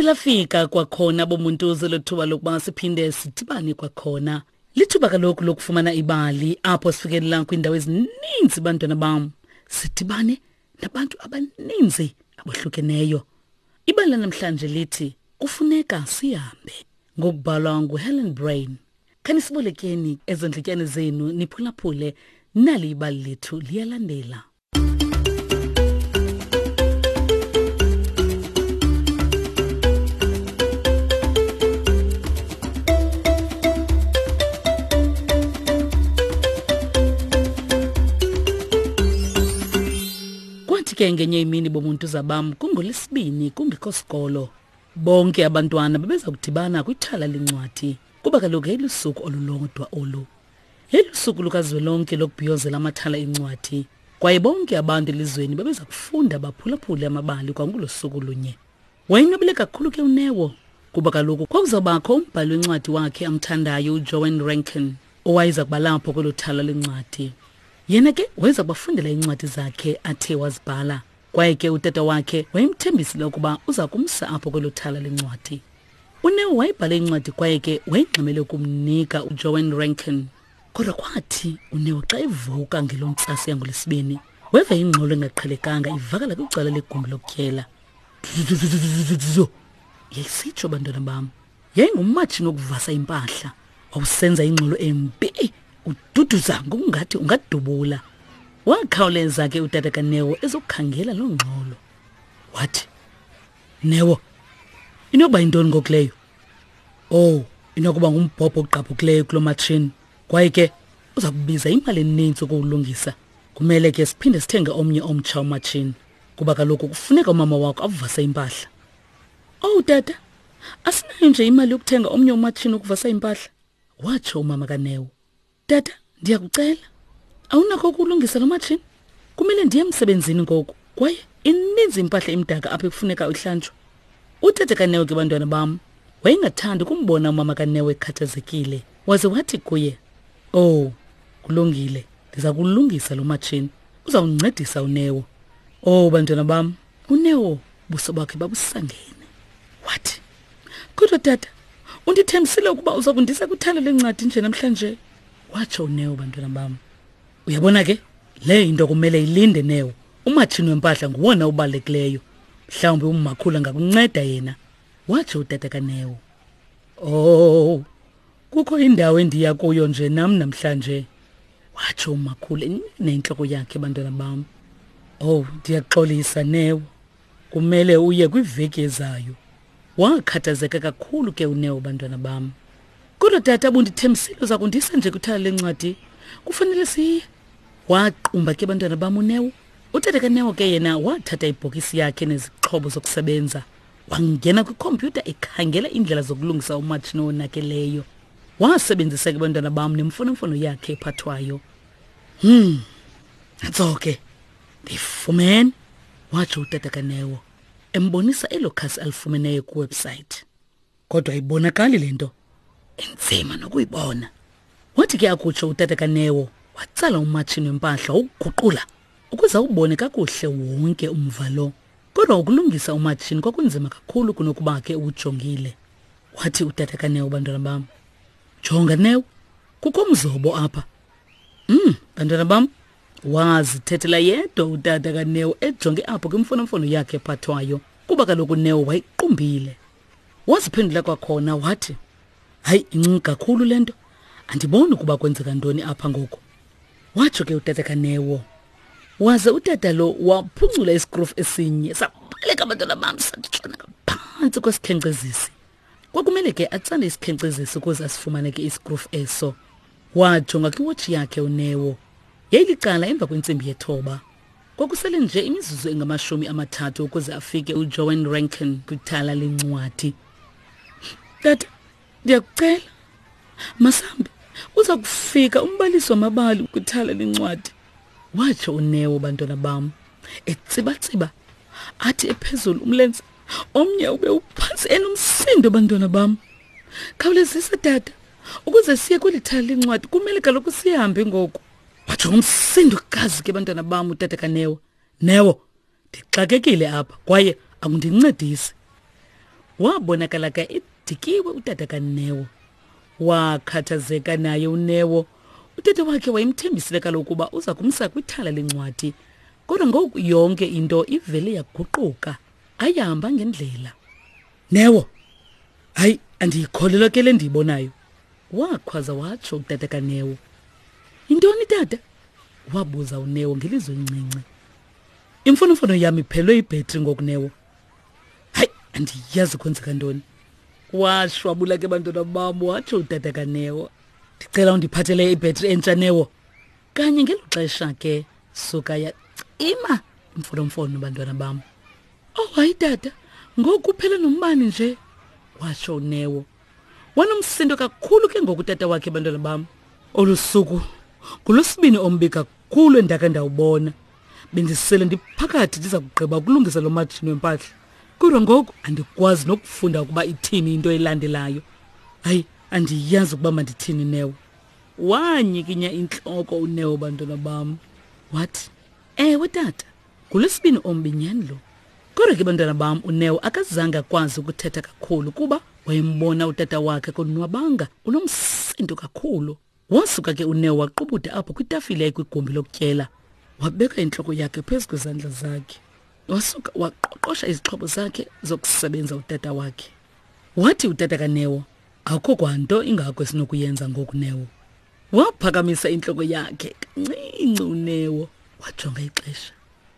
Lafika kwakhona bomuntuze lethuba lokuba siphinde sidibane kwakhona. Lithuba kaloku lokufumana ibali apho sifikelela kwiindawo ezininzi bantwana bam. Sidibane nabantu abaninzi abohlukeneyo. Ibali lanamhlanje lithi kufuneka sihambe ngokubhalwa nguHelen Brain. Khanisibolekeni ezo ndlityane zenu niphulaphule nali ibali lethu liyalandela. Kwathi ke ngenye imini bomuntu zabam kungolesibini kungekho sikolo. Bonke abantwana babeza kudibana kwithala lencwadi kuba kaloku yayilusuku olulodwa olu. Yayilusuku lukazwelonke lokubhiyozela amathala encwadi kwaye bonke abantu elizweni babeza kufunda baphulaphule amabali kwangulo suku lunye. Wayonwabile kakhulu ke uNeo kuba kaloku kwakuzawubakho umbhali wencwadi wakhe amthandayo uJoan Rankin owayeza kuba lapho kwelo thala lencwadi. Yena ke wayeza kubafundela iincwadi zakhe athe wazibhala. Kwaye ke utata wakhe wayemthembisile ukuba uza kumsa apho kwelo thala lencwadi. UNeo wayebhale incwadi kwaye ke wayengxamele ukumnika uJoan Rankin. Kodwa kwathi uNeo xa evuka ngeloo ntsasa yangoLwesibini, weva ingxolo engaqhelekanga ivakala kwicala legumbi lokutyela. Yayisitsho bantwana bam. Yayingumatshini wokuvasa impahla. Wawusenza ingxolo embi, ududuza ngokungathi ungadubula. Wakhawuleza ke utata kaNeo ezokukhangela loo ngxolo. Wathi, Neo, inokuba yintoni ngoku leyo? Oh, inokuba ngumbhobho ogqabhukileyo kulo matshini. Kwaye ke uza kubiza imali eninzi ukuwulungisa. Kumele ke siphinde sithenge omnye omtsha umatshini kuba kaloku kufuneka umama wakho avase impahla. Owu tata, asinayo nje imali yokuthenga omnye umatshini wokuvasa impahla, watsho umama kaNeo. Tata, ndiyakucela, awunakho ukulungisa lo matshini? Kumele ndiye emsebenzini ngoku kwaye ininzi impahla emdaka apha ekufuneka ihlanjwe. Utata kaNeo ke bantwana bam wayengathandi ukumbona umama kaNeo ekhathazekile, waze wathi kuye, Owu, kulungile, ndiza kulungisa lo matshini. Uzawuncedisa uNeo. Owu bantwana bam, uNeo buso bakhe babusangene. Wathi, Kodwa tata, undithembisile ukuba uza kundisa kwithala lencwadi nje namhlanje. Watsho uNeo bantwana bam. Uyabona ke, le into kumele ilinde Neo. Umatshini wempahla nguwona ubalulekileyo. Mhlawumbi umakhulu angakunceda yena. Watsho utata kaNeo. Oh, kukho indawo endiya kuyo nje nam namhlanje. Watsho umakhulu enentloko yakhe bantwana bam. Oh, ndiyaxolisa Neo. Kumele uye kwiveki ezayo. Wakhathazeka kakhulu ke uNeo bantwana bam. Kodwa tata bundithembisile uza kundisa nje kwithala lencwadi. Kufanele siye. Waqumba ke bantwana bam uNeo. Utata kaNeo ke yena wathatha ibhokisi yakhe nezixhobo zokusebenza. Wangena kwikhompyutha ekhangela iindlela zokulungisa umatshini owonakeleyo. Wasebenzisa ke bantwana bam nemfonomfono yakhe ephathwayo. Nantso ke. Ndiyifumene, watsho utata kaNeo embonisa elo khasi alifumeneyo kwiwebsayithi. Kodwa ayibonakali le nto, inzima nokuyibona. Wathi ke akutsho utata kaNeo, watsala umatshini wempahla wawuguqula ukuze awubone kakuhle wonke umva lo. Kodwa ukulungisa umatshini kwakunzima kakhulu kunokuba ke uwujongile. Wathi utata kaNeo, bantwana bam, jonga Neo, kukho umzobo apha. Bantwana bam, wazithethela yedwa utata kaNeo ejonge apho kwimfonomfono yakhe ephathwayo kuba kaloku uNeo wayiqumbile. Waziphendula kwakhona wathi, hayi, incinci kakhulu le nto, andiboni ukuba kwenzeka ntoni apha ngoku. Watsho ke utata kaNeo. Waze utata lo waphuncula isikrufu esinye sabaleka abantwana bam satshona ngaphantsi kwesikhenkcezisi. Kwakumele ke atsale isikhenkcezisi ukuze asifumane ke isikrufu eso. Wajonga kwiwotshi yakhe uNeo. Yayilicala emva kwentsimbi yethoba. Kwakusele nje imizuzu engamashumi amathathu ukuze afike uJoan Rankin kwithala lencwadi. Tata, ndiyakucela, masambe, uza kufika umbalisi wamabali kwithala lencwadi. Watsho uNeo bantwana bam, etsibatsiba, athi ephezulu umlenze, omnye ube uphantsi enomsindo bantwana bam. Khawulezisa tata, ukuze siye kweli thala lencwadi kumele kaloku sihambe ngoku. Watsho ngomsindo kazi ke bantwana bam utata kaNeo. Neo, ndixakekile apha kwaye akundincedisi. Wabonakala ke edikiwe utata kaNeo. Wakhathazeka naye uNeo. Utata wakhe wayemthembisile kaloku ukuba uza kumsa kwithala lencwadi. Kodwa ngoku yonke into ivele yaguquka. Ayihamba ngendlela. Neo, hayi andiyikholelwa ke le ndiyibonayo. Wakhwaza watsho utata kaNeo. Yintoni tata? Wabuza uNeo ngelizwi elincinci. Imfonomfono yam iphelwe ibhetri ngoku Neo. Hayi, andiyazi kwenzeka ntoni. Washwabula ke bantwana bam watsho utata kaNeo. Ndicela undiphathele ibhetri entsha Neo. Kanye ngelo xesha ke suka yacima imfonomfono bantwana bam. Oh hayi tata, ngoku kuphele nombani nje, watsho uNeo. Wanomsindo kakhulu ke ngoku tata wakhe bantwana bam. Olu suku ngolwesibini ombi kakhulu endake ndawubona. Bendisele ndiphakathi ndiza kugqiba ukulungisa lo matshini wempahla. Kodwa ngoku andikwazi nokufunda ukuba ithini into elandelayo. Hayi, andiyazi ukuba mandithini Neo. Wanyikinya intloko uNeo bantwana bam. Wathi, "Ewe tata, ngolwesibini ombi nyhani lo." Kodwa ke bantwana bam uNeo akazange akwazi ukuthetha kakhulu kuba wayembona utata wakhe konwabanga unomsindo kakhulu. Wasuka ke uNeo waqubuda apho kwitafile ekwigumbi lokutyela. Wabeka intloko yakhe phezu kwezandla zakhe. Wasuka waqoqosha izixhobo zakhe zokusebenza utata wakhe. Wathi utata kaNeo, akukho kwanto ingako esinokuyenza ngoku Neo. Waphakamisa intloko yakhe kancinci uNeo wajonga ixesha.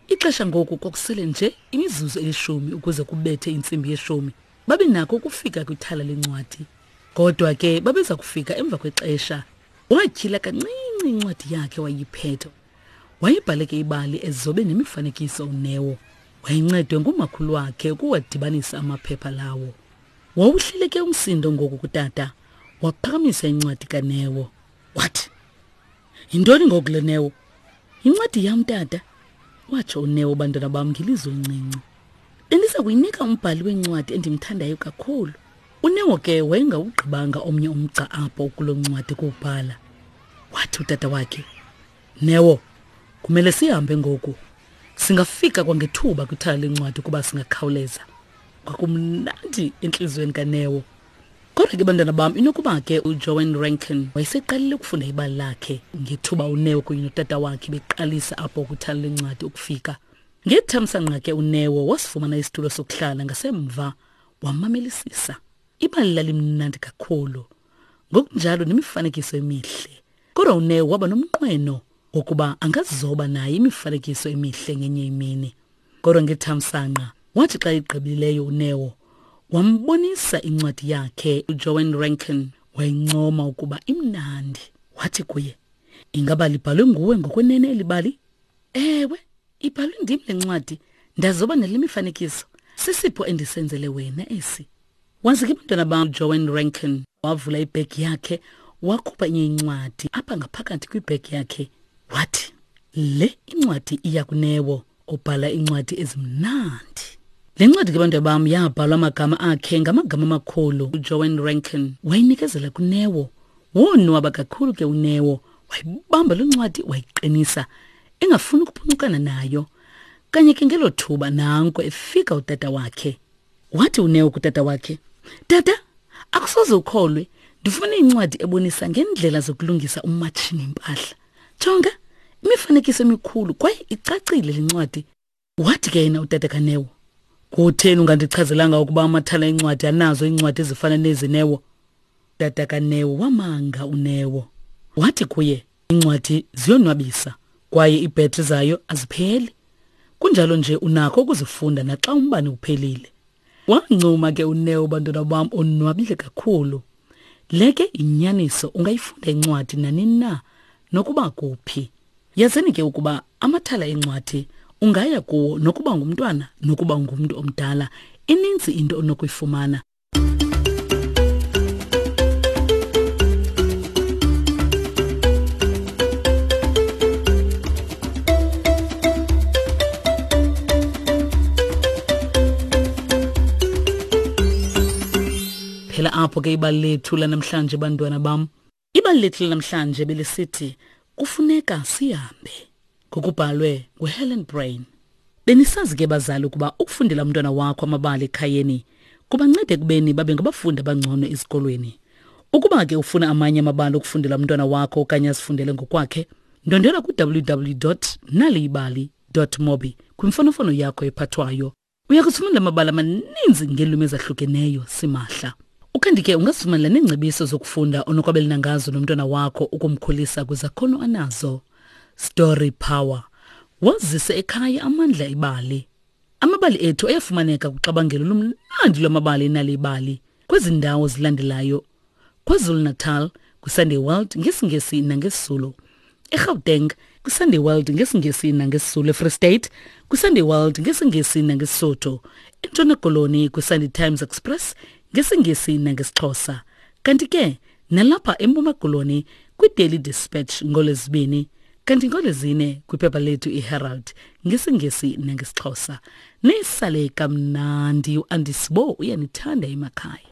Ixesha ngoku kwakusele nje imizuzu elishumi ukuze kubethe intsimbi yeshumi. Babe nako ukufika kwithala lencwadi. Kodwa ke babeza kufika emva kwexesha. Watyhila kancinci incwadi yakhe wayiphetha. Wayebhale ke ibali ezobe nemifanekiso uNeo. Wayencedwe ngumakhulu wakhe ukuwadibanisa amaphepha lawo. Wawuhlile ke umsindo ngoku kutata. Waphakamisa incwadi kaNeo. Wathi, Yintoni ngoku le Neo? Yincwadi yam tata, watsho uNeo bantwana bam ngelizwi elincinci. Bendiza kuyinika umbhali wencwadi endimthandayo kakhulu. UNeo ke wayengawugqibanga omnye umgca apho kuloo ncwadi kuwubhala. Wathi utata wakhe, Neo, kumele sihambe ngoku. Singafika kwangethuba kwithala lencwadi ukuba singakhawuleza. Kwakumnandi entliziyweni kaNeo. Kodwa ke bantwana bam inokuba ke uJoan Rankin wayeseqalile ukufunda ibali lakhe ngethuba uNeo kunye notata wakhe beqalisa apho kwithala lencwadi ukufika. Ngethamsanqa ke uNeo wasifumana isitulo sokuhlala ngasemva wamamelisisa. Ibali lalimnandi kakhulu, ngokunjalo nemifanekiso emihle. Kodwa uNeo waba nomnqweno wokuba angazoba naye imifanekiso emihle ngenye imini. Kodwa ngethamsanqa wathi xa igqibileyo uNeo wambonisa incwadi yakhe uJoan Rankin wayincoma ukuba imnandi. Wathi kuye, Ingaba libhalwe nguwe ngokwenene eli bali? Ewe, ibhalwe ndim le ncwadi, ndazoba nale mifanekiso. Sisipho endisenzele wena esi. Waze ke bantwana bam Joan Rankin wavula ibhegi yakhe wakhupha enye incwadi apha ngaphakathi kwibhegi yakhe wathi le incwadi iya kunewo obhala iincwadi ezimnandi. Le ncwadi ke bantwana bam yabhalwa amagama akhe ngamagama amakhulu. UJoan Rankin wayinikezela kuNeo. Wonwaba kakhulu ke uNeo, wayibamba loo ncwadi wayiqinisa engafuni ukuphuncukana nayo. Kanye ke ngelo thuba nanko efika utata wakhe. Wathi uNeo kutata wakhe, Tata, akusoze ukholwe, ndifumene incwadi ebonisa ngeendlela zokulungisa umatshini impahla. Jonga, imifanekiso emikhulu kwaye icacile le ncwadi. Wathi ke yena utata kaNeo, Kutheni ungandichazelanga ukuba amathala encwadi anazo iincwadi ezifana nezi Neo? Tata kaNeo wamanga uNeo. Wathi kuye, Iincwadi ziyonwabisa kwaye iibhetri zayo azipheli. Kunjalo nje unakho ukuzifunda naxa umbane uphelile. Wancuma ke uNeo bantwana bam onwabile kakhulu. Le ke yinyaniso ungayifunda incwadi nanini na nokuba kuphi. Yazini ke ukuba amathala encwadi ungaya kuwo nokuba ngumntwana nokuba ngumntu omdala ininzi into onokuyifumana. Phela apho ke ibali lethu lanamhlanje bantwana bam. Ibali lethu lanamhlanje belisithi kufuneka sihambe ngokubhalwe nguHelen Brain. Benisazi ke bazali ukuba ukufundela umntwana wakho amabali ekhayeni Kubanceda ekubeni babe ngabafundi abangcono ezikolweni. Ukuba ke ufuna amanye amabali okufundela umntwana wakho okanye azifundele ngokwakhe, ndondela ku-www naliyibali mobi kwimfonomfono yakho ephathwayo. Uya kuzifumana amabali amaninzi ngeelwimi ezahlukeneyo simahla. Ukanti ke ungazifumanela neengcebiso zokufunda onokwabelana ngazo nomntwana wakho ukumkhulisa kwizakhono anazo. Story Power. Wazise ekhaya amandla ebali. Amabali ethu ayafumaneka kuxabangelo lomnandi lwamabali enalibali kwezi ndawo zilandelayo: KwaZulu-Natal kwiSunday World ngesiNgesi nangesiZulu, eGauteng kwiSunday World ngesiNgesi nangesiZulu, eFree State kwiSunday World ngesiNgesi nangeSotho, eNtshona Koloni kwiSunday Times Express ngesiNgesi nangesiXhosa, kanti ke nalapha eMpuma Koloni kwiDaily Dispatch ngoLwezibini, kanti ngoLwezine kwiphepha lethu iHerald ngesiNgesi nangesiXhosa. Nisale kamnandi, uAndisibo uyanithanda emakhaya.